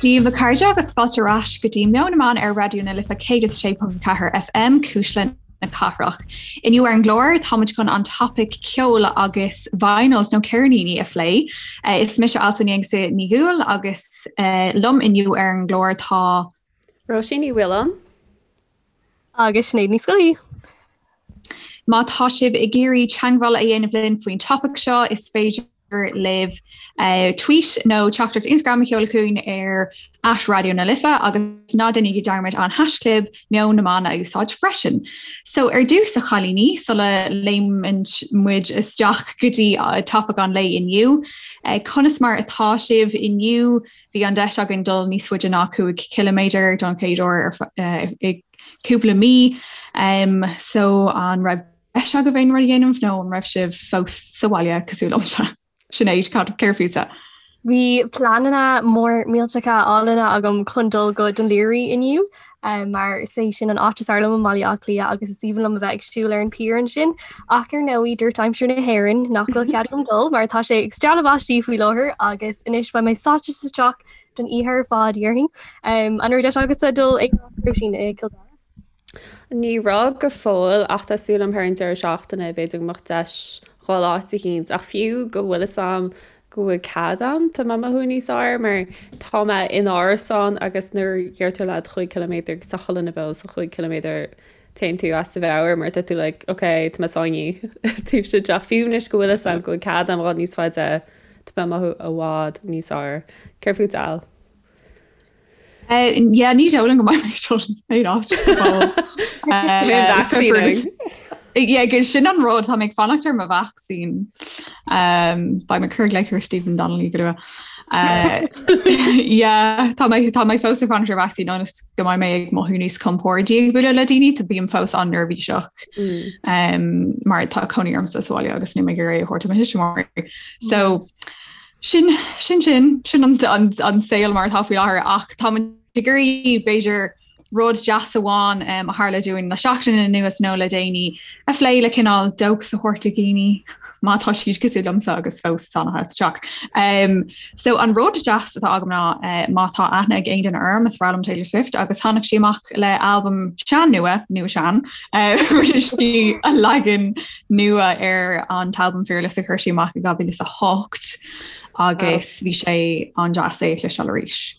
Dia daoibh a chairde agus fáilte ar ais go dtí Meon na mBan ar Raidió na Life 106.4 FM, Cuisle na Cathrach. Inniu ar an gclár táimid chun an topaic ceol agus vinyls nó ceirníní a phlé. Is mise Alswyn Ní Dhúill agus liom inniu ar an gclár tá. Róisín Ní Mhaoláin. Agus Sinéad Ní Scolaí. Má tá sibh ag iarraidh teagmháil a dhéanamh linn faoin topaic seo, is féidir libh tweet nó teachtaireacht Instagram a sheoladh chugainn ar at Raidió na Life agus ná déanaigí dearmad an haischlib Meon na mBan a úsáid freisin. So ar dtús a chailíní, sula léimeann muid isteach go dtí topaic an lae inniu, conas mar atá sibh inniu? Bhí an deis againn dul níos faide ná 5 chiliméadar don chéad uair i cúpla mí. So an raibh deis agaibh aon rud a dhéanamh nó an raibh sibh fós sa bhaile cosúil liomsa? Sinéad, cad céard fútsa? Bhí pleananna mór millteacha álainne agam chun dul go Dún Laoghaire inniu mar is é sin an áit is fearr liom i mBaile Átha Cliath agus is aoibhinn liom a bheith ag siúl ar an pier ansin. Ach ar ndóigh dúirt aimsir na hÉireann nach bhfuil cead agam dul mar tá sé ag stealladh báistí faoi láthair agus anois beidh mé sáite sa teach don oíche ar fad, déarfainn. An raibh deis agatsa dul ag Róisín i gCill Dara? Ní raibh go fóill ach tá súil agam thar an deireadh seachtaine b'fhéidir go mbeadh deis dhul áit eicínt ach fiú go bhfuil fhios a'm go bhfuil cead a'm tá mé ag mothú níos fearr mar tá mé in árasán agus nuair a deirtear leat chúig ciliméadar agus tá chuile dhuine beo sa chúig ciliméadar téann tú as do mheabhair mar tá tú like ok tá mé sáinnithe taobh istigh den teach fiú anois go bhfuil fhios a'm go bhfuil cead a'm dhul níos faide tá mé ag mothú i bhfad níos fearr. Céard fút Al? Yeah, ní dóigh liom go mbeidh mé ag dul aon áit. Yeah, agus sin an rud tá mé ag fanacht ar mo vacsaín. Beidh mé ag cur glaoch ar Stephen Donnelly go luath. Yeah, tá mé tá mé fós ag fanacht ar vacsaín ionas go mbeidh mé ag mothú níos compordaí ag bualadh le daoine, tá bím fós an-neirbhíseach mar tá cónaí ormsa sa bhaile agus níl mé ag iarraidh a thabhairt do mo thuismitheoirí. So Sin, sin sin, sin an, an, an saol mar atá faoi láthair ach tá muid ag iarraidh b'fhéidir rud deas amháin um, a tharla dúinn le seachtain anuas nó le déanaí a phlé le cineál dóchas a thabhairt do dhaoine má tá siad cosúil liomsa agus fós sáinnithe sa teach. Um, so an rud deas atá agam ná uh, má tá aithne ag aon duine orm is breá liom Taylor Swift agus tháinig sí amach le albam sean nua, nua sean, uh, rinne sí a leagan nua ar an t-albam Fearless a chuir sí amach i 2008 agus bhí sé an-deas é a chloisteáil arís.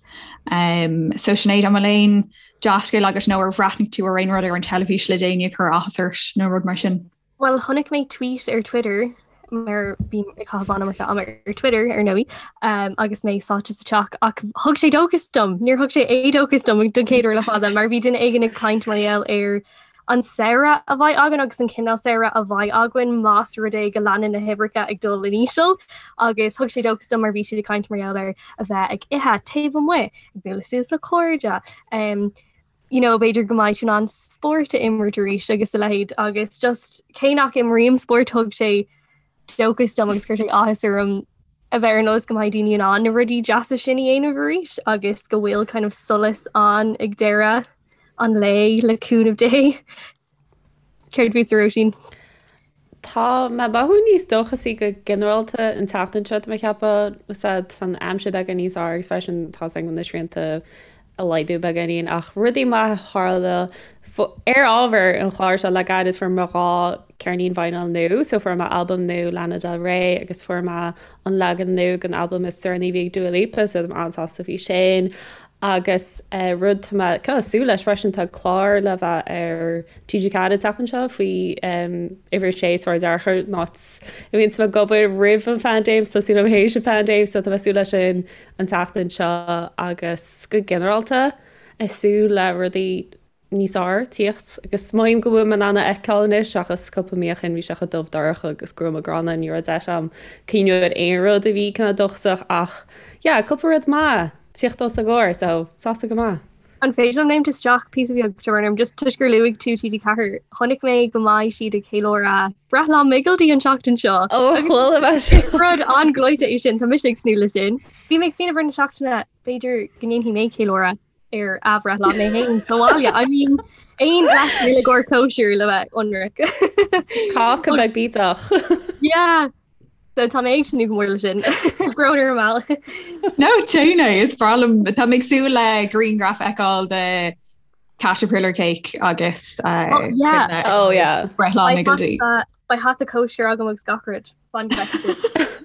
Um, so Sinéad an bhfuil aon dea-scéal agat nó ar bhreathnaigh tú ar aon rud ar an teilifís le déanaí a chuir áthas ort nó rud mar sin? Well chonaic mé tweet ar Twitter mar bím ag caitheamh an-iomarca ama ar Twitter ar ndóigh um, agus mé sáite sa teach ach thug sé dóchas dom, níor thug sé éadóchas dom don chéad uair le fada mar bhí duine éigin ag caint mar gheall ar an samhradh a bheidh againn agus an cineál samhradh a bheidh againn más rud é go leanann na huimhreacha ag dul in íseal agus thug sé dóchas dom mar bhí siad ag caint mar gheall ar a bheith ag ithe taobh amuigh, ag bualadh suas le cairde, um, you know, b'fhéidir go mbeidh tú in ann spórt a imirt arís agus a leithéid agus just cé nach imrím spórt thug sé dóchas dom agus chuir sé áthas orm a bheith ar an eolas go mbeidh daoine in ann na rudaí deasa sin a dhéanamh arís agus go bhfuil kind of solas ann ag deireadh an lae le cúnamh Dé. Céard fútsa Róisín? Tá mé ag mothú níos dóchasaí go ginearálta an tseachtain seo tá mé ag ceapadh tá an aimsir beagán níos fearr agus freisin tá a fhios agam na srianta ag laghdú beagáinín ach rudaí maithe a tharla ar ábhar an chláir seo le gairid fuair mé 2 ceirnín vinyl nua so fuair mé albam nua Lana Del Rey agus fuair mé an leagan nua den albam is deireanaí a bhí ag Dua Lipa so tá mé an-sásta faoi sin Agus rud tá mé kind of súil leis freisin, tá clár le bheith ar TG4 an tseachtain seo faoi uimhir a sé Sráid Fhearchair, an áit a mbíonn mé ag obair roimh an phaindéim, so tá súil agam théis an phaindéim, so tá mé ag súil leis sin an tseachtain seo agus go ginearálta ag súil le rudaí níos fearr tíocht agus mothaím go bhfuil mé in ann a fheiceáil anois seachas cúpla mí ó shin bhí sé chomh dubh dorcha agus gruama gránna ní raibh deis agam cuimhneamh ar aon rud a bhí cineál dóchasach ach yeah cúpla rud maith tíocht os ár gcomhair so sásta go maith. An féidir liom léimt isteach píosa beag Siobhán orm just toisc gur luaigh tú TG4 chonaic mé go mbeidh siad ag ceiliúradh breithlá Mhigildi an tseachtain seo. Ó chuala mé sin. Rud an-ghleoite é sin tá mise ag tnúth leis sin. Bhí mé ag smaoineamh ar na seachtaine b'fhéidir go ndéanfaidh mé ceiliúradh ar a bhreithlá mé féin sa bhaile. I mean, aon leithscéal i gcomhair cóisir le bheith ionraic. Cáca beag bídeach. Yeah. So tá mé ag tnúth go mór leis sin. Brón orm Al. No déan é is breá liom tá mé ag súil le grianghraf a fheiceáil de caterpillar cake agus uh, oh, yeah. oh, yeah. breithlá Miggledy. Beidh hata cóisir agam agus gach rud. Fan go bhfeicfidh sibh.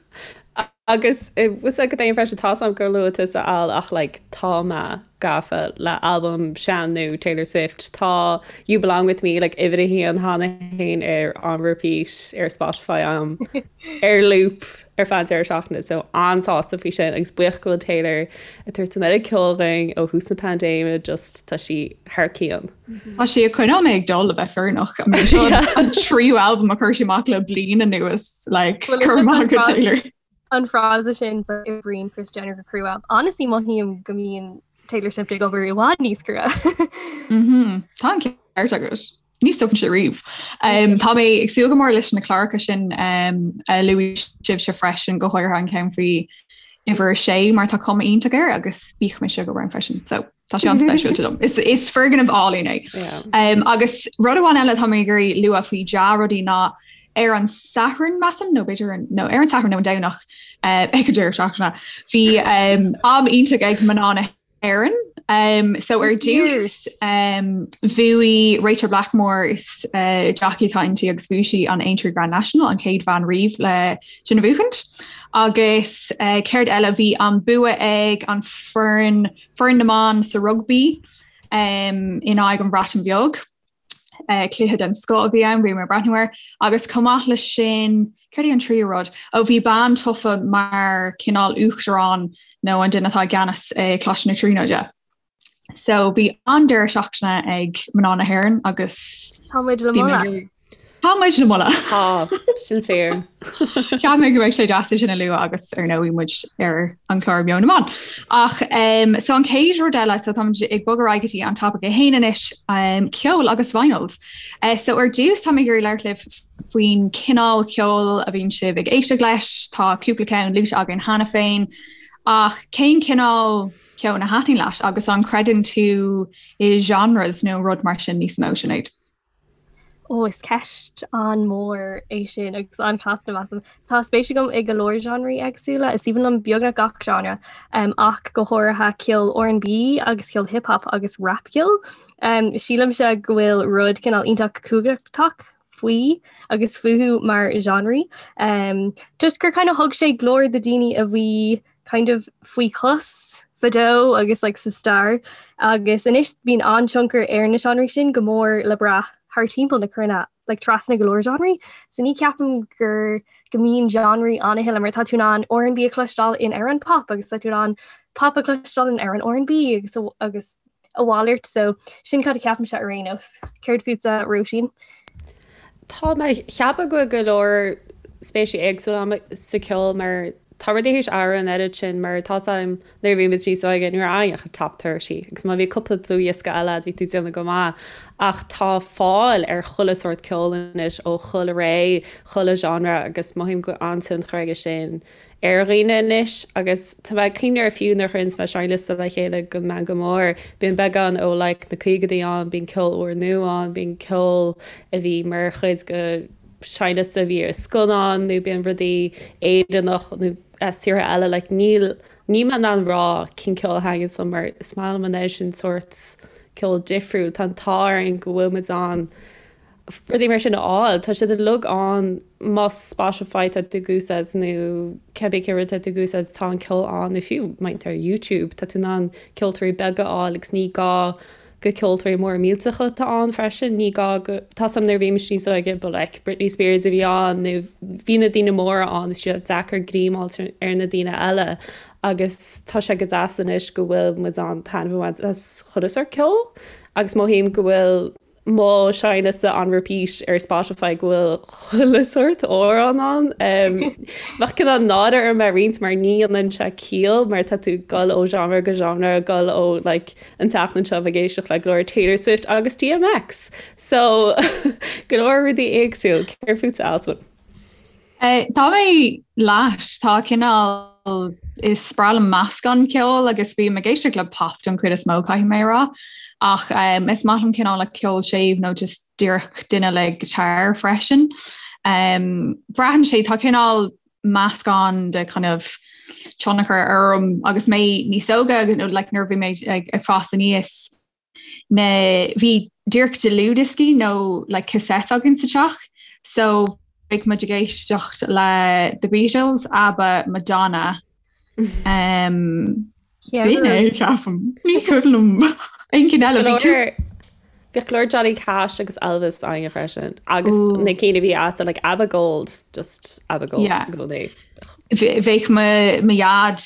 Agus was go dtéim freisin tá am gur luaigh tusa Al ach like, tá mé gafa le albam sean nua Taylor Swift tá You Belong With Me like uimhir a haon cheana féin ar on repeat ar Spotify am ar loop ar feadh an deireadh seachtaine so an-sásta faoi sin agus buíoch go bhfuil Taylor ag tabhairt an oiread ceoil dhúinn ó thús na paindéime just tá sí thar cionn. Tá sí ag coinneáil mé ag dul le bheith fírinneach. I mean, seo an tríú albam a chuir sí amach le bliain anuas like Well, cur is maith go an Taylor. An frása sin so oibríonn Kris Jenner go crua. Honestly mothaím go mbíonn Taylor Swift ag obair i bhfad níos crua. Mhm. Tá an ceart agat. Ní stopann sé riamh. Um, tá mé ag súil go mór leis na cláracha sin um, a luaigh sibhse freisin go háirithe an ceann faoi uimhir a sé mar tá cuma iontach air agus bíodh mise go raibh freisin. So tá sé an-speisialta dom. Is, is foirgneamh álainn é. Yeah. Um, agus rud amháin eile tá mé ag iarraidh lua faoi dea-rudaí ná ar an Satharn measaim nó b'fhéidir an- nó ar an Satharn nó an Domhnach uh, ag an deireadh seachtaine. Bhí um, am iontach ag mná na hÉireann. Um, so ar dtús um, bhuaigh Rachel Blackmore is uh, jockey atá inti agus bhuaigh sí an Aintree Grand National an chéad bhean riamh le sin a bhuachaint. Agus uh, céard eile bhí an bua ag an foireann foireann na mban sa rugbaí um, in aghaidh an Bhreatain Bheag. Uh, cluiche den scoth a bhí ann, bhí mé ag breathnú air. Agus chomh maith leis sin, céard é an tríú rud? Ó bhí bean tofa mar cineál uachtarán nó an duine atá i gceannas i Coláiste na Tríonóide. So bhí an-deireadh seachtaine ag mná na hÉireann agus Tá muid le moladh. Tá muid le moladh. Tá, sin fíor. Cheap mé go mbeadh sé deas é sin a lua agus ar ndóigh muid ar an chlár Meon na mBan. Ach um, so an chéad rud eile so táimid ag bogadh ar aghaidh go dtí an topic é féin anois um, ceol agus vinyls. Uh, so ar dtús tá mé ag iarraidh labhairt libh faoin cineál ceoil a bhíonn sibh ag éisteacht leis, tá cúpla ceann luaite againn cheana féin, ach cén cineál ceoil a thaitníonn leat agus an creideann tú i genres nó rud mar sin níos mó Sinéad? Ó, is ceist an-mhór é sin agus an-chasta measaim. Tá spéis agam i go leor genreí éagsúla, is aoibhinn liom beagnach gach genre, um, ach go háirithe ceol R&B agus ceol hip hop agus rapcheol. Um, sílimse go bhfuil rud cineál iontach cumhachtach faoi agus fúthu mar genreí. Um, just gur kind of thug sé glór do daoine a bhí kind of faoi chos fadó agus like sa stair agus anois bíonn an-tionchar ar na seánraí sin go mór le brath thar timpeall na cruinne like trasna go leor genreí. So ní ceapaim gur go mbíonn genreí ann a thuilleadh mar tá tú in ann R&B a chloisteáil in amhrán pop agus tá tú in ann pop a chloisteáil in amhrán R&B agus agus a mhalairt so sin cad a cheapaimse ar aon nós. Céard fútsa Róisín? Tá mé ag ceapadh go bhfuil go leor spéisí éagsúla agam sa cheol mar tá rudaí théis athrú an oiread sin mar tá 's agam nuair a bhí muid níos óige ní raibh ann ach an top 30 agus má bhí cúpla dlúthdhiosca eile bhí tú ag déanamh go maith ach tá fáil ar chuile sórt ceoil anois ó chuile ré, chuile genre agus mothaím go bhfuil an-tionchar aige sin ar dhaoine anois agus tá mé ag cuimhneamh air fiú nuair a chuireanns mé seinnliosta le chéile don Meangadh Mór, bíonn beagán ó like na caogaidí ann, bíonn ceol úrnua ann, bíonn ceol a bhí mar chuid de seinnliosta a bhí ar scannán nó bíonn rudaí Éireannach nó as tíortha eile like níl níl mé in ann rá cén ceol a thaitníonns liom mar is maith liom an oiread sin sórt ceol difriúil, tá an t-ádh orainn go bhfuil muid in ann rudaí mar sin a fháil. Tá siad uilig ann más Spotify tá tú ag úsáid nó cibé cén rud tá tú ag úsáid tá an ceol ann nó fiú má tá ar YouTube tá tú in ann ceoltóirí beaga a fháil agus ní gá go ceoltóirí móra millteacha atá ann freisin ní gá go tá 's agam nuair a bhí mise níos óige ba like Britney Spears a bhí ann nó bhí na daoine móra ann is sé deacair greim a fháil ar na daoine eile agus tá sé go deas anois go bhfuil muid in ann taitneamh a bhaint as chuile sórt ceoil agus mothaím go bhfuil mo sheinnliosta on repeat ar Spotify go bhfuil chuile sórt amhrán ann. Bheadh cineál náire orm é a roinnt mar ní dhéanann sé ciall mar tá tú ag dul ó genre go genre, ag dul ó like an tseachtain seo ag éisteacht le go leor Taylor Swift agus DMX. So go leor rudaí éagsúil. Céard fútsa Alswyn? Tá mé leat, tá cineál, is breá liom meascán ceoil agus bím ag éisteacht le pop don chuid is mó caithfidh mé a rá ach is maith liom cineál like ceol séimh nó just díreach duine le guitar freisin. Braitheann sé, tá cineál. meascán de kind of tionchar orm agus mé níos óige agus nó like nuair a bhí mé ag ag fás aníos na bhí díreach dlúthdhioscaí nó like cassette againn sa teach so bheadh muid ag éisteacht le The Beatles, ABBA, Madonna um, B'in é, ceapaim. Ní cuimhin liom aon cheann eile. Bhí tú. Bhíodh go leor Johnny Cash agus Elvis againne freisin. Agus na cinn a bhí agat like ABBA Gold, just ABBA Gold i gcónaí. Bheadh mo dhaid,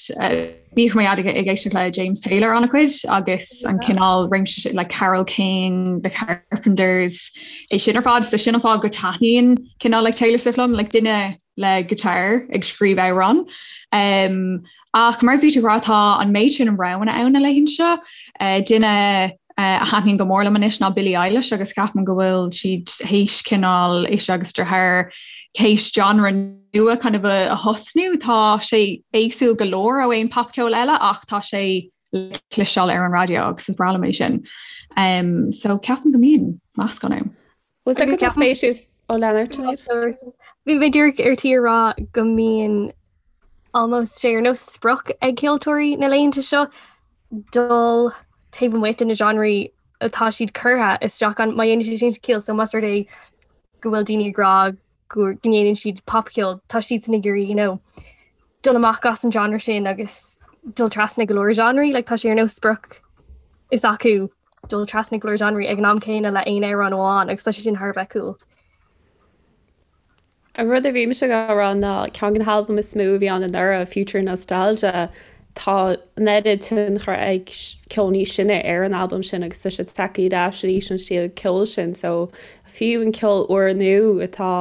bhíodh mo dhaid ag éisteacht le James Taylor an-chuid agus an cineál réimse sin, like Carole King, The Carpenters, é sin ar fad. So sin an fáth go taitníonn cineál like Taylor Swift liom, like duine le guitar ag scríobh amhrán. Um, ach mar bhí tú ag rá tá an méid sin roghanna ann na laethanta seo. Uh, duine uh, a thaitníonn go mór liom anois ná Billie Eilish agus ceapaim go bhfuil siad théis cineál ise agus a deartháir théis genre nua kind of a, a thosnú. Tá sé éagsúil go leor ó aon popcheol eile ach tá sé le cloisteáil ar an raidió agus is breá liom é sin. Um, so ceapaim go mbíonn meascán ann. Was é go spéisiúil ó lean ort Sinéad? Bhí mé díreach ar tí a rá go mbíonn almost sé ar nós sprioc ag ceoltóirí na laethanta seo dul taobh amuigh de na genreí atá siad curtha isteach ann má dhéanann sé sin ciall so más rud é go bhfuil daoine ag rá go ndéanann siad popcheol tá siadsan ag iarraidh you know dul amach as an genre sin agus dul trasna go leor genreí like tá sé ar nós sprioc is acu dul trasna go leor genreí ag an am céanna le aon amhrán amháin agus tá sé sin thar a bheith cool. An rud a bhí mise ag rá ná ceann de na halbaim is mó a bhí ann anuraidh, Future Nostalgia, tá an oiread tionchar ag ceol níos sine ar an albam sin agus tá sé tagtha ar ais arís an stíl ceoil sin so fiú an ceol úrnua atá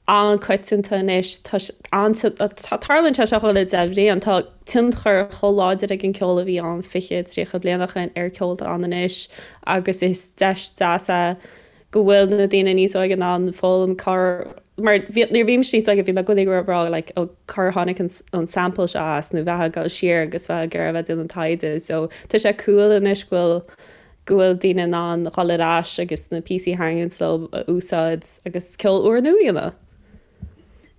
an-coitianta anois. Tá tarlaíonn sé seo chuile 10 bhliain. Tá tionchar chomh láidir ag an ceol a bhí ann 20, 30 bliain ó shin ar ceol atá ann anois agus is deis deas é go bhfuil na daoine níos óige in ann foghlaim cár mar nuair a bhí mise níos óige bhí mé i gcónaí ag rá like ó cár tháinig an an sample seo as nó bheith ag dul siar agus bheith ag iarraidh a bheith déanamh taighde so tá sé cool anois go bhfuil go bhfuil daoine in ann dhul ar ais agus na píosaí a thaitníonn leo a úsáid agus ceol úrnua a dhéanamh.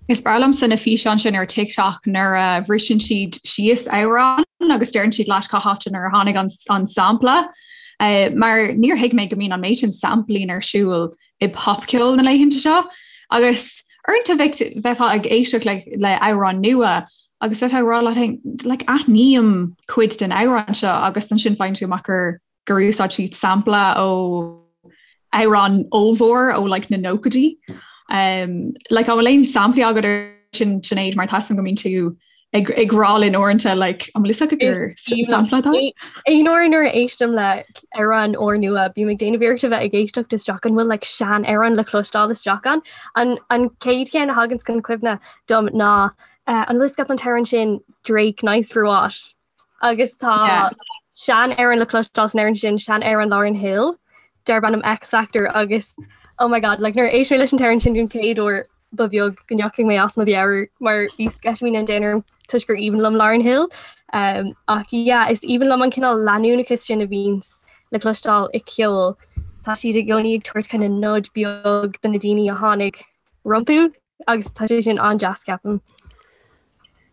Is breá liomsa na físeáin sin ar TikTok nuair a bhriseann siad síos amhrán agus deireann siad leat cá háit inar tháinig an, an sampla. Uh, mar níor thuig mé go mbíonn an méid sin sampling ar siúl i popcheol na laethanta seo. Agus uaireanta bheifeá ag éisteacht le, le amhrán nua Agus bheifeá ag rá leat féin, like, aithním cuid den amhrán seo agus ansin faigheann tú amach gur gur úsáid siad sampla ó amhrán ollmhór ó like, na nóchaidí. Um, like, an bhfuil aon samplaí agat ar sin Sinéad mar tá a fhios agam go mbíonn tú ag, ag rá linn uaireanta like, an bhfuil fhios agat gur sampla atá? Aon uair nuair a éistim le amhrán úrnua, bím ag déanamh iarracht a bheith ag éisteacht isteach an bhfuil like, sean-amhrán le cloisteáil isteach ann. An, an chéad cheann a thagann chun cuimhne dom ná An bhfuil fhios agat an t-amhrán sin Drake Nice for What? Agus tá sean-amhrán le cloisteáil san amhrán sin sean-amhrán Lauryn Hill darb ainm Ex-Factor agus oh my god, like nuair a éist mé leis an t-amhrán sin den chéad uair ba bheag go ndeachaigh mé as mo mheabhair mar bhí sceitimíní an domhain orm toisc gur aoibhinn liom Lauryn Hill. Um, ach yeah, is aoibhinn liom an cineál leanúnachas sin a bhíonns le cloisteáil i ceol. Tá siad i gcónaí ag tabhairt kind of nod beag do na daoine a tháinig rompu agus tá sé sin an-deas ceapaim.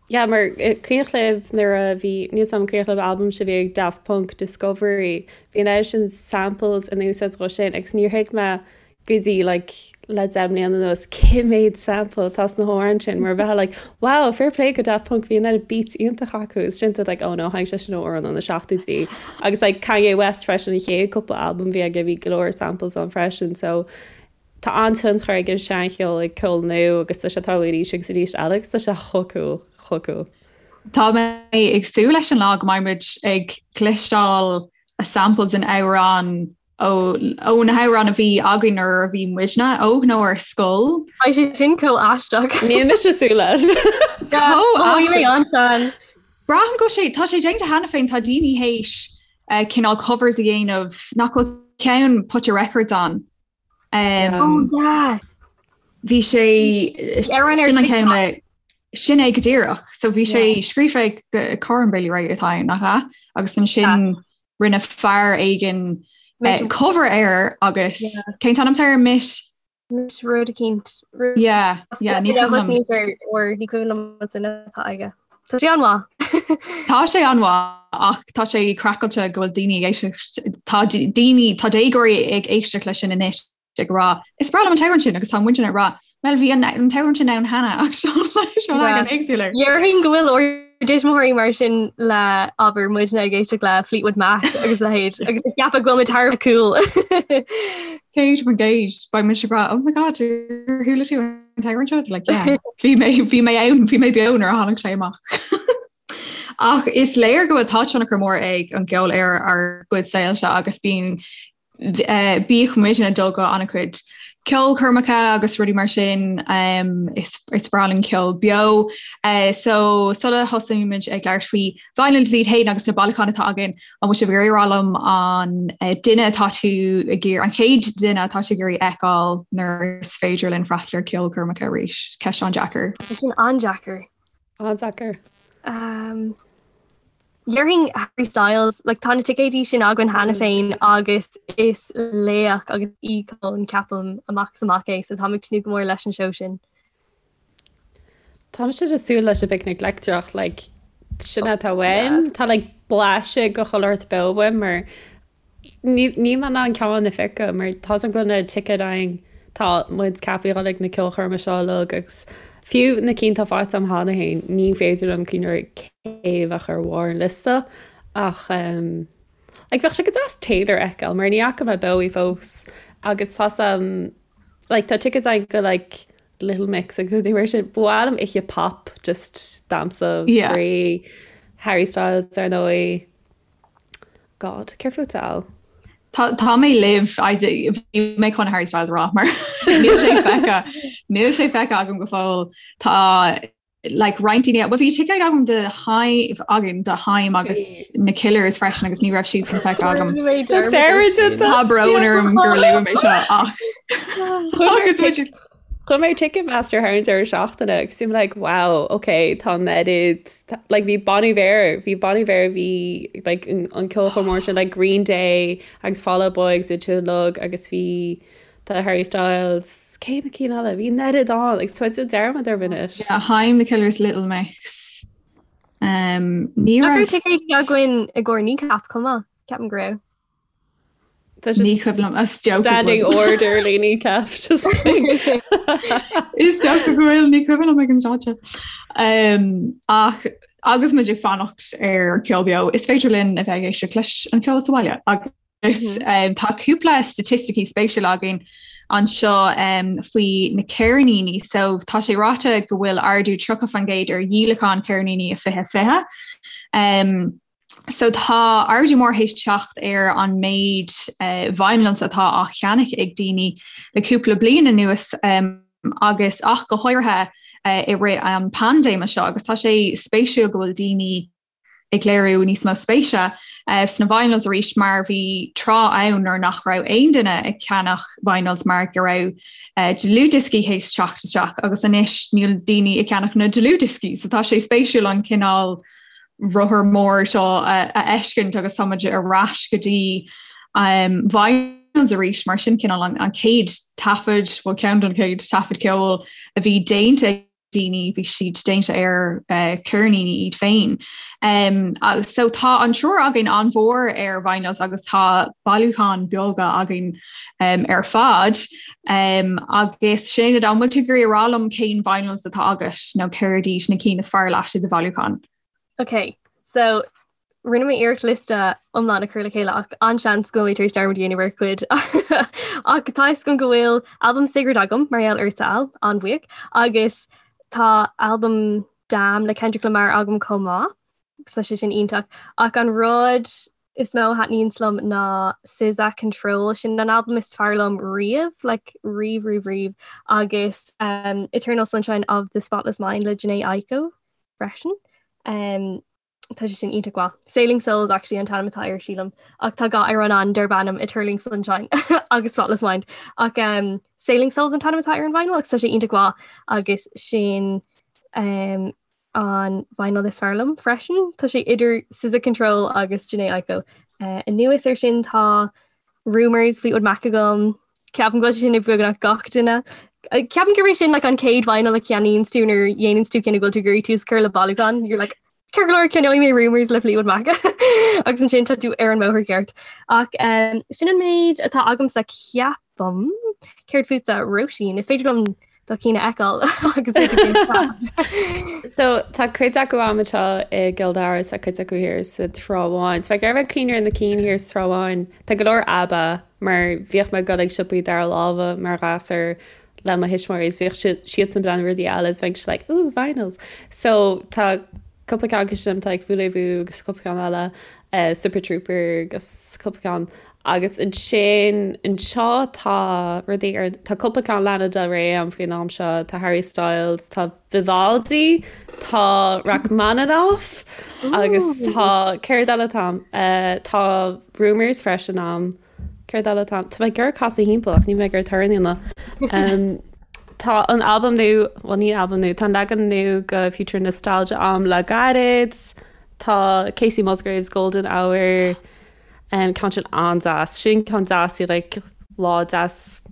Yeah, mar cuimhneach libh nuair a bhí, níl 's agam an cuimhneach libh albam sin a bhí ag Daft Punk, Discovery, bhí an oiread sin samples in úsáid dhó sin agus níor thuig mé go dtí like le 10 mbliana anuas cé mhéad sample atá sna hamhráin sin mar bheifeá like wow fair play go Daft Punk bhí an oiread beats iontach acu is sin like oh no tháinig sé sin ó amhrán ó na seachtóidí agus like Kanye West freisin an chéad cúpla albam bhí aige bhí go leor samples ann freisin so Tá an-tionchar ag an seancheol ag ceol nua agus tá sé ag tarlú arís agus arís eile agus tá sé chomh cool, chomh cool. Tá mé ag súil leis an lá go mbeidh muid ag cloisteáil samples in amhrán ó ó na hamhráin a bhí againn nuair a bhí muidne óg nó ar scoil. Tá sé sin chomh aisteach. Níl mise ag súil leis. Chomh aisteach. Braithim go sé tá sé déanta cheana féin tá daoine théis cineál covers a dhéanamh nach bhfuil ceann Put Your Records On. Um, oh, yeah. Bhí sé ar sin é go díreach, so bhí sé scríofa ag Corinne Bailey Rae atá nach ea agus ansin rinne fear éigin uh, cover air agus cén t-ainm air Mitch? Anois rud eicínt. Yeah, yeah, ní cuimhin liom. Or ní cuimhin liom an duine atá aige. Tá sé an-mhaith. Tá sé an-mhaith ach tá sé craiceáilte go bhfuil daoine ag éisteacht tá daoine tá déagóirí ag éisteacht leis sin anois ag rá is breá liom an t-amhrán sin agus tá muidne ag rá Well bhí an an t-amhrán sin ann cheana ach seo seo leagan éagsúil air. Déarfainn go bhfuil ár dtuismitheoirí mar sin le abair muidne ag éisteacht le Fleetwood Mac agus a leithéid agus ag ceapadh go bhfuil muid thar a bheith cool. 100% beidh mise ag rá oh my god ar chuala tú an t-amhrán seo like yeah bhí mé bhí mé ann bhí mé beo nuair a tháinig sé amach. Ach is léir go bhfuil tá tionchar mór ag an gceol ar ár gcuid saolta agus bíonn Bíodh muidne ag dul go an-chuid ceolchoirmeacha agus rudaí mar sin, is is breá linn ceol beo. So sula thosaímid ag labhairt faoi vinyls iad féin agus na bailiúcháin atá againn, an bhfuil sibh ag iarraidh a rá liom an duine atá tú ag iarraidh, an chéad duine atá tú ag iarraidh fheiceáil nuair is féidir linn freastal ar ceolchoirmeacha arís? Ceist an-deacair. Tá sin an-deacair. An-deacair. Déarfainn Harry Styles, like tá na ticéidí sin againn cheana féin agus is laoch agus íocón ceapaim amach is amach é, so táim ag tnúth go mór leis an seó sin. Táimse ag súil leis an bPicnic Leictreach, like sin atá uaim. Tá like blaiseadh de chuile shórt beo uaim mar Níl mé in ann ceann a phiocadh mar tá 's agam go bhfuil na ticéid againn, tá muid ceaptha a dhul ag na ceolchoirme seo uilig agus fiú na cinn atá faighte agam cheana féin, ní féidir liom cuimhneamh ar cé a bheadh ar bharr an liosta ach like bheadh sé go deas Taylor a fheiceáil mar ní fhaca mé beo í fós agus tá 's agam like tá ticéid againn go like Little Mix agus rudaí mar sin. Ba mhaith liom oíche pop just damhsa, spraoi, Harry Styles ar ndóigh. God, céard fútsa, Al? Tá mé libh bhí mé chun Harry Styles a rá mar níl sé feicthe níl sé feicthe agam go fóill tá like roinnt daoine well bhí ticéid agam do Haim againn do Haim agus na Killers freisin agus ní raibh siad sin feicthe agam. Tá brón orm gur luaigh mé seo ach Chuaigh mé ar Ticketmaster thar an deireadh seachtaine agus bhí mé like wow ok tá an oiread like bhí Bon Iver bhí Bon Iver bhí like an an ceolchoirm mór sin like Green Day agus Fall Out Boy agus iad sin uilig agus bhí tá Harry Styles cé na cinn eile bhí an oiread ann agus tá mé ag déanamh dearmad orthu anois. Yeah, Haim, The Killers, Little Mix. Um, ní raibh ticéid againn i gcomhair Kneecap chomh maith, ceapaim go raibh. Ní cuimhin liom is dócha Standing order le Kneecap just Is dócha go bhfuil ní cuimhin liom ag an stáitse. Um, ach agus muid ag fanacht ar ceol beo, is féidir linn a bheith ag éisteacht leis an ceol sa bhaile agus mm -hmm. um, tá cúpla staitisticí spéisiúla againn anseo um, faoi na ceirníní, so tá sé ráite go bhfuil ardú 30% ar dhíolachán ceirníní i 2020. Um, So tá ardú mór théis teacht ar an méid vinyls atá á cheannach ag daoine le cúpla bliain anuas agus ach go háirithe i rith an paindéime seo agus tá sé spéisiúil go bhfuil daoine ag léiriú níos mó spéise sna vinyls arís mar bhí tráth ann nuair nach raibh aon duine ag ceannach vinyls mar go raibh dlúthdhioscaí théis teacht isteach agus anois níl daoine ag ceannach na dlúthdhioscaí so tá sé spéisiúil an cineál rothar mór seo a fheiscint agus tá muid ar ais go dtí um, vinyls arís mar sin cineál an, an chéad taifead bhuel ceann den chéad taifead ceoil a bhí déanta ag daoine bhí siad déanta ar uh, ceirníní iad féin. Um, so tá an triúr againn an-mhór ar vinyls agus tá bailiúchán beaga againn um, ar fad. Um, agus Sinéad, an bhfuil tú ag iarraidh a rá liom cén vinyls atá agat nó céard iad na cinn is fearr leat i do bhailiúchán? Ok, so rinne mé iarracht liosta iomlán a chur le chéile ach an-seans go bhfuil mé tar éis dearmad a dhéanamh ar chuid. Ach tá fhios agam go bhfuil albam Sigrid agam mar gheall ortsa Al, an-bhuíoch, agus tá albam Damn le Kendrick Lamar agam chomh maith, agus tá sé sin iontach. Ach an rud is mó a thaitníonns liom ná SZA Control, sin an albam is fearr liom riamh, like riamh riamh riamh, agus um, Eternal Sunshine of the Spotless Mind le Jhené Aiko freisin. Um, tá sé sin iontach mhaith. Sailing Souls actually an t-ainm atá air sílim, ach tá dhá amhrán ann darb ainm Eternal Sunshine agus Spotless Mind. Ach um, Sailing Souls an t-ainm atá ar an vinyl agus tá sé iontach mhaith agus sin um, an vinyl is fearr liom freisin. Tá sé idir SZA Control agus Jhené Aiko. Anuas air sin tá Rumours Fleetwood Mac agam. Ceapaim go bhfuil sé sin ag beagnach gach duine. Ceapaim gurb é sin like, an chéad vinyl a cheannaíonn tú nuair a dhéanann tú cinneadh go bhfuil tú ag iarraidh tús a chur le bailiúchán. You're like, Ceart go leor ceannóidh mé Rumours le Fleetwood Mac agus ansin tá tú ar an mbóthar ceart. Ach um, sin an méid atá agamsa ceapaim. Céard fútsa Róisín, is féidir liom do chinn a fheiceáil agus So tá cuid acu agam anseo i gCill Dara is tá cuid acu thiar sa Trá Bháin. So ag iarraidh bheith cuimhneamh ar na cinn thiar sa Trá Bháin, tá go leor ABBA mar bhíodh mé ag dul ag siopaí dara láimhe mar ghasúr le mo thuismitheoirí is bhíodh siadsan ag breathnú ar rudaí eile is bheinnse like ooh vinyls. So tá cúpla ceann acu sin tá like Voulez-Vous agus cúpla ceann eile uh, Super Trooper agus cúpla ceann agus ansin anseo tá rudaí ar tá cúpla ceann Lana Del Rey agam faoin am seo tá Harry Styles tá Vivaldi tá Rachmaninoff agus tá céard eile atá agam uh, tá Rumours freisin agam Céard eile atá? Tá mé ag iarraidh casadh thimpeall ach níl mé ag iarraidh torann a dhéanamh. Tá an albam nua, bhuel ní albam nua, tá an leagan nua de Future Nostalgia agam le gairid. Tá Kacey Musgraves Golden Hour, ceann sin an-deas. Sin ceann deas i like lá deas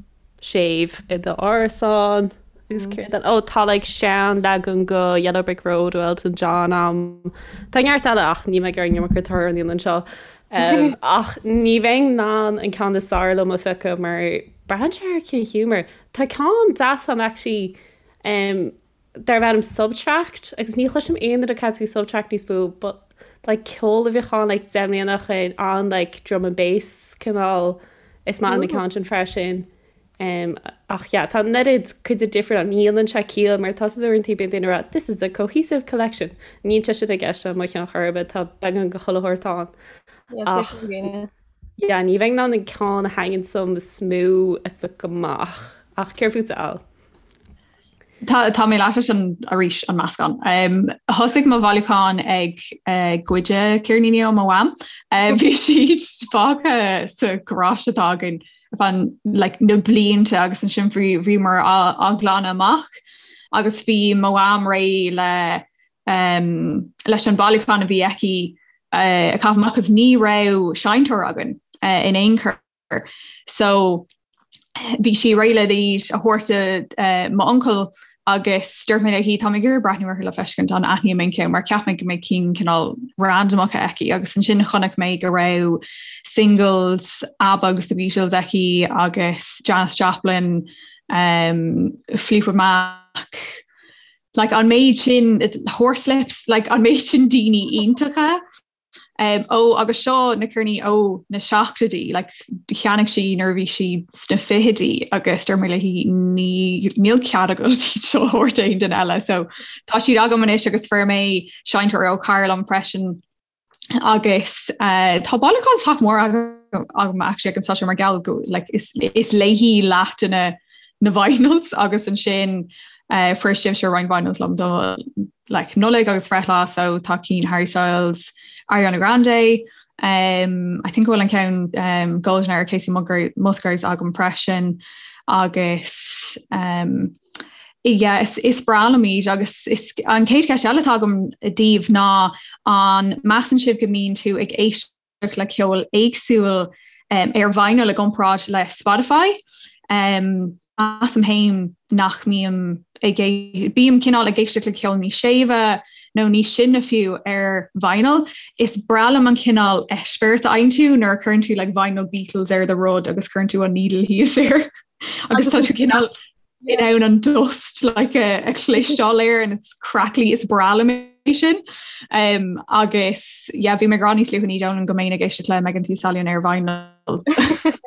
séimh i d'árasán agus céard eile? Ó tá like sean leagan de Yellow Brick Road ó Elton John agam. Tá neart eile ach níl mé ag iarraidh an iomarca torann a dhéanamh anseo. Ach ní bheinn in ann an ceann is fearr liom a phiocadh mar braitheann sé ar cén ghiúmar. Tá ceann deas agam actually um, darb ainm Subtract agus ní chloisim aon duine ag caint faoi Subtract níos mó but like ceol a bhíodh ann like 10 mbliana ó shin an like drum and bass cineál is maith liom an ceann sin freisin. Um, ach yeah, tá an oiread cuid difriúil ann, ní dhéanann sé ciall mar tá san uaireanta bíonn daoine ag rá this is a cohesive collection. Níl sé sin i gceist le mo cheann chor ar bith, tá beagán de chuile shórt ann. Ach yeah, ní bheinn in ann an ceann a thaitníonn liom is mó a phiocadh amach. Ach céard fútsa Al? Tá tá mé leat sin arís an meascán. Um, thosaigh mo bhailiúchán ag uh, goid ceirníní ó mo mham. Uh, bhí siad fágtha sa gharáiste atá againn fan like, na blianta agus ansin bhí bhíomar á, á glanadh amach agus bhí mo mham réidh le um, leis an bailiúchán a bhí aici uh, a chaitheamh amach agus ní raibh seinnteoir againn uh, in aon chor. So bhí sí réidh le iad a thabhairt do uh, m'uncail agus dúirt mé léi tá mé ag iarraidh breathnú orthu le feiscint an aithním aon cheann mar cheap mé go mbeidh cinn cineál randomacha aici agus ansin chonaic mé go raibh singles ABBA agus the Beatles aici agus Janis Joplin um, Fleetwood Mac like an méid sin Horslips like an méid sin daoine iontacha Um, ó agus seo na ceirníní ó na seachtóidí, like, cheannaigh sí nuair a bhí sí sna fichidí agus dúirt mé léi ní níl cead agat iad seo a thabhairt aon duine eile. So tá siad agam anois agus fuair mé seinnteoir ó chara liom freisin agus uh, tá bailiúchán sách mór agam actually ag an stáisiún mar gheall go like, is, is léi leath de na na vinyls agus ansin uh, fuair sibhse roinnt vinyls liom do like Nollaig agus breithlá so tá cinn Harry Styles, Ariana Grande, um, I think bhfuil an ceann um, Golden Hour Kacey Musgraves agam freisin agus um, yeah, is, is breá liom iad agus is, an chéad cheist eile atá agam daoibh ná an measann sibh go mbíonn tú ag éisteacht le ceol éagsúil um, ar vinyl i gcomparáid le Spotify. Um, measaim féin nach mbím ag bím cineál ag éisteacht le ceol níos séimhe nó níos sine fiú ar vinyl. Is breá liom an cineál eispéireas a fhaigheann tú nuair a chuireann tú like, vinyl Beatles ar do rud agus cuireann tú an needle thíos air agus tá tú cineál in ann an dust like a, a chloisteáil air and it's crackly is breá liom é sin. Um, agus yeah, bhí mé ag rá níos luaithe ní dóigh liom go mbeinn ag éisteacht le Megan Thee Stallion ar vinyl.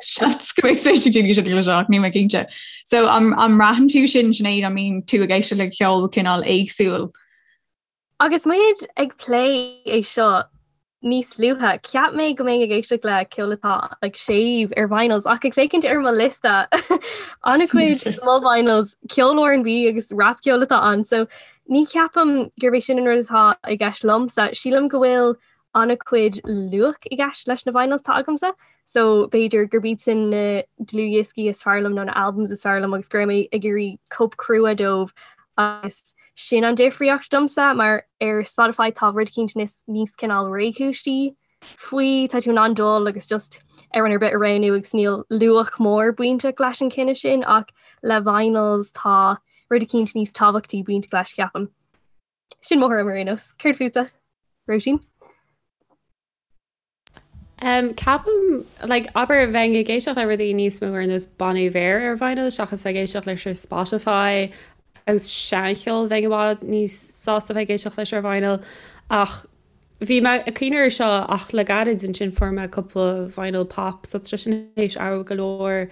Seans go mbeidh spéis ag daoine sin le ach níl mé cinnte. So an, an mbraitheann tú sin Sinéad an mbíonn tú ag éisteacht le ceol cineál éagsúil. Agus muid ag plé é seo níos luaithe, cheap mé go mbeinn ag éisteacht le ceol atá like, séimh ar vinyls ach ag féachaint ar mo liosta an-chuid de mo vinyls ceol R&B agus rap ceol atá ann, so ní cheapaim gurb é sin an rud atá i gceist liomsa. Sílim go bhfuil an-chuid luach i gceist leis na vinyls atá agamsa, so b'fhéidir gurb iad sin na dlúthdhioscaí is fearr liom nó na albums is fearr liom agus go raibh mé ag iarraidh cóip crua dóibh agus sin an difríocht domsa mar ar Spotify tá rud eicínt níos níos cineál réchúisí faoi tá tú in ann dul agus just amhrán ar bith a roghnú agus níl luach mór bainteach leis an cinneadh sin ach le vinyls tá rud eicínt níos tábhachtaí bainteach leis ceapaim. Sin mo thuairim ar aon nós. Céard fútsa? Róisín? Um, ceapaim, like, abair bheinn ag éisteacht le rudaí níos mó ar nós Bon Iver ar vinyl seachas ag éisteacht leis ar Spotify agus seancheol bheinn i bhfad níos sásta bheith ag éisteacht leis ar vinyl ach bhí mé ag cuimhneamh air seo ach le gairid ansin fuair mé cúpla vinyl pop so tá sin théis athrú go leor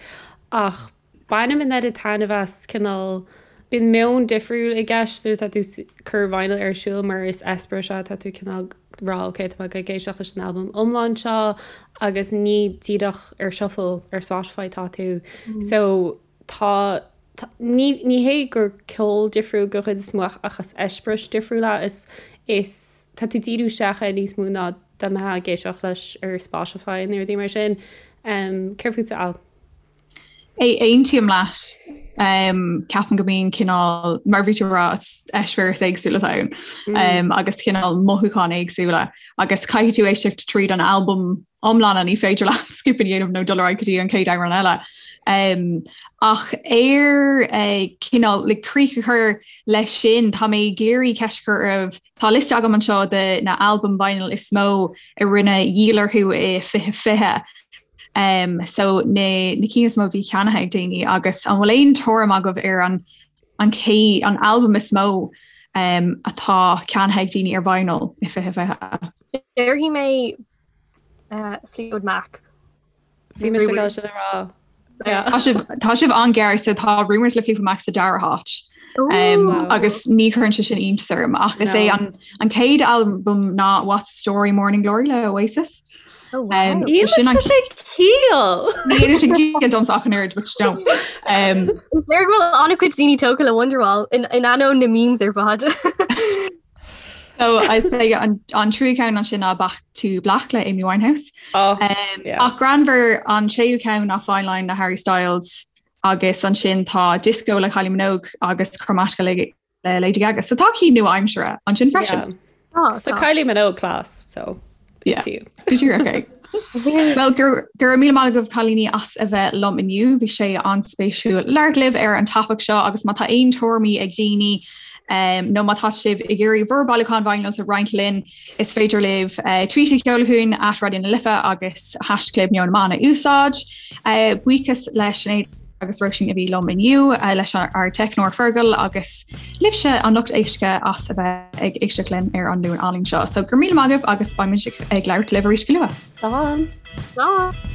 ach Bainim an oiread taitneamh as, cineál, bíonn meon difriúil i gceist nuair atá tú ag cur vinyl ar siúl mar is eispéireas é, tá tú cineál ag rá ok tá mé ag éisteacht leis an albam iomlán seo agus ní díreach ar shuffle ar Spotify tá tú. So tá, ní, ní hé gur ceol difriúil den chuid is mó ach is eispéireas difriúil é, is, is, tá tú ag díriú isteach air níos mó ná dá mbeifeá ag éisteacht leis ar Spotify nó rudaí mar sin. Céard fútsa Al? Aontaím leat. Ceapaim go mbíonn cineál, mar bhí tú ag rá, eispéireas éagsúla ann mm. agus cineál mothúcháin éagsúla agus caithfidh tú éisteacht tríd an albam iomlán ní féidir leat skip a dhéanamh nó dul ar aghaidh go dtí an chéad amhrán eile. Um, ach ar uh, cineál le críoch a chur leis sin tá mé ag iarraidh ceist a chur oraibh Tá liosta agam anseo de na albaim vinyl is mó a rinne dhíol orthu i 2020. Um, so na, na cinn is mó a bhí ceannaithe ag daoine agus an bhfuil aon tuairim agaibh ar an, an cé an albam is mó um, atá ceannaithe ag daoine ar vinyl i 2020? Déarfaidh mé uh, Fleetwood Mac. Bhí mise ag dul sin a rá. Tá sibh tá sibh an-ghar so tá Rumours le Fleetwood Mac sa dara háit. Um, agus ní chuireann sé sin iontas orm ach is é an, an chéad albam ná What's the Story Morning Glory le Oasis. Oh, wow. Um, so sin an sé ciall. Ní sin ciall domsa ach an oiread, which don't. Um, Is léir go bhfuil an-chuid daoine tógtha le Wonderwall in in ainneoin na memes ar fad. So I say an, an tríú ceann ansin ná Back to Black le Amy Winehouse. Oh, um, yeah. Ach greannmhar an séú ceann ná Fine Line le Harry Styles agus ansin tá Disco le Kylie Minogue agus Chromatica le, le Lady Gaga. So tá cinn nua-aimseartha ansin freisin. Yeah. Oh, so Kylie Minogue class, so yeah. fiú. Okay. Well go raibh míle maith agaibh cailíní as a bheith liom inniu, bhí sé an-spéisiúil labhairt libh ar an topaic seo agus má tá aon tuairimí ag daoine um, nó má tá sibh ag iarraidh bhur bailiúchán vinyls a roinnt linn, is féidir libh uh, tweet a sheoladh chugainn at Raidió na Life agus haischlib Meon na mBan a úsáid. Uh, buíochas le Sinéad agus Róisín a bhí liom inniu uh, leis ár teicneoir Fergal agus libhse an lucht éisteachta as a bheith ag éisteacht linn ar an Luan álainn seo. So go raibh míle maith agaibh agus beimid ag labhairt libh arís go luath. Slán! Slán!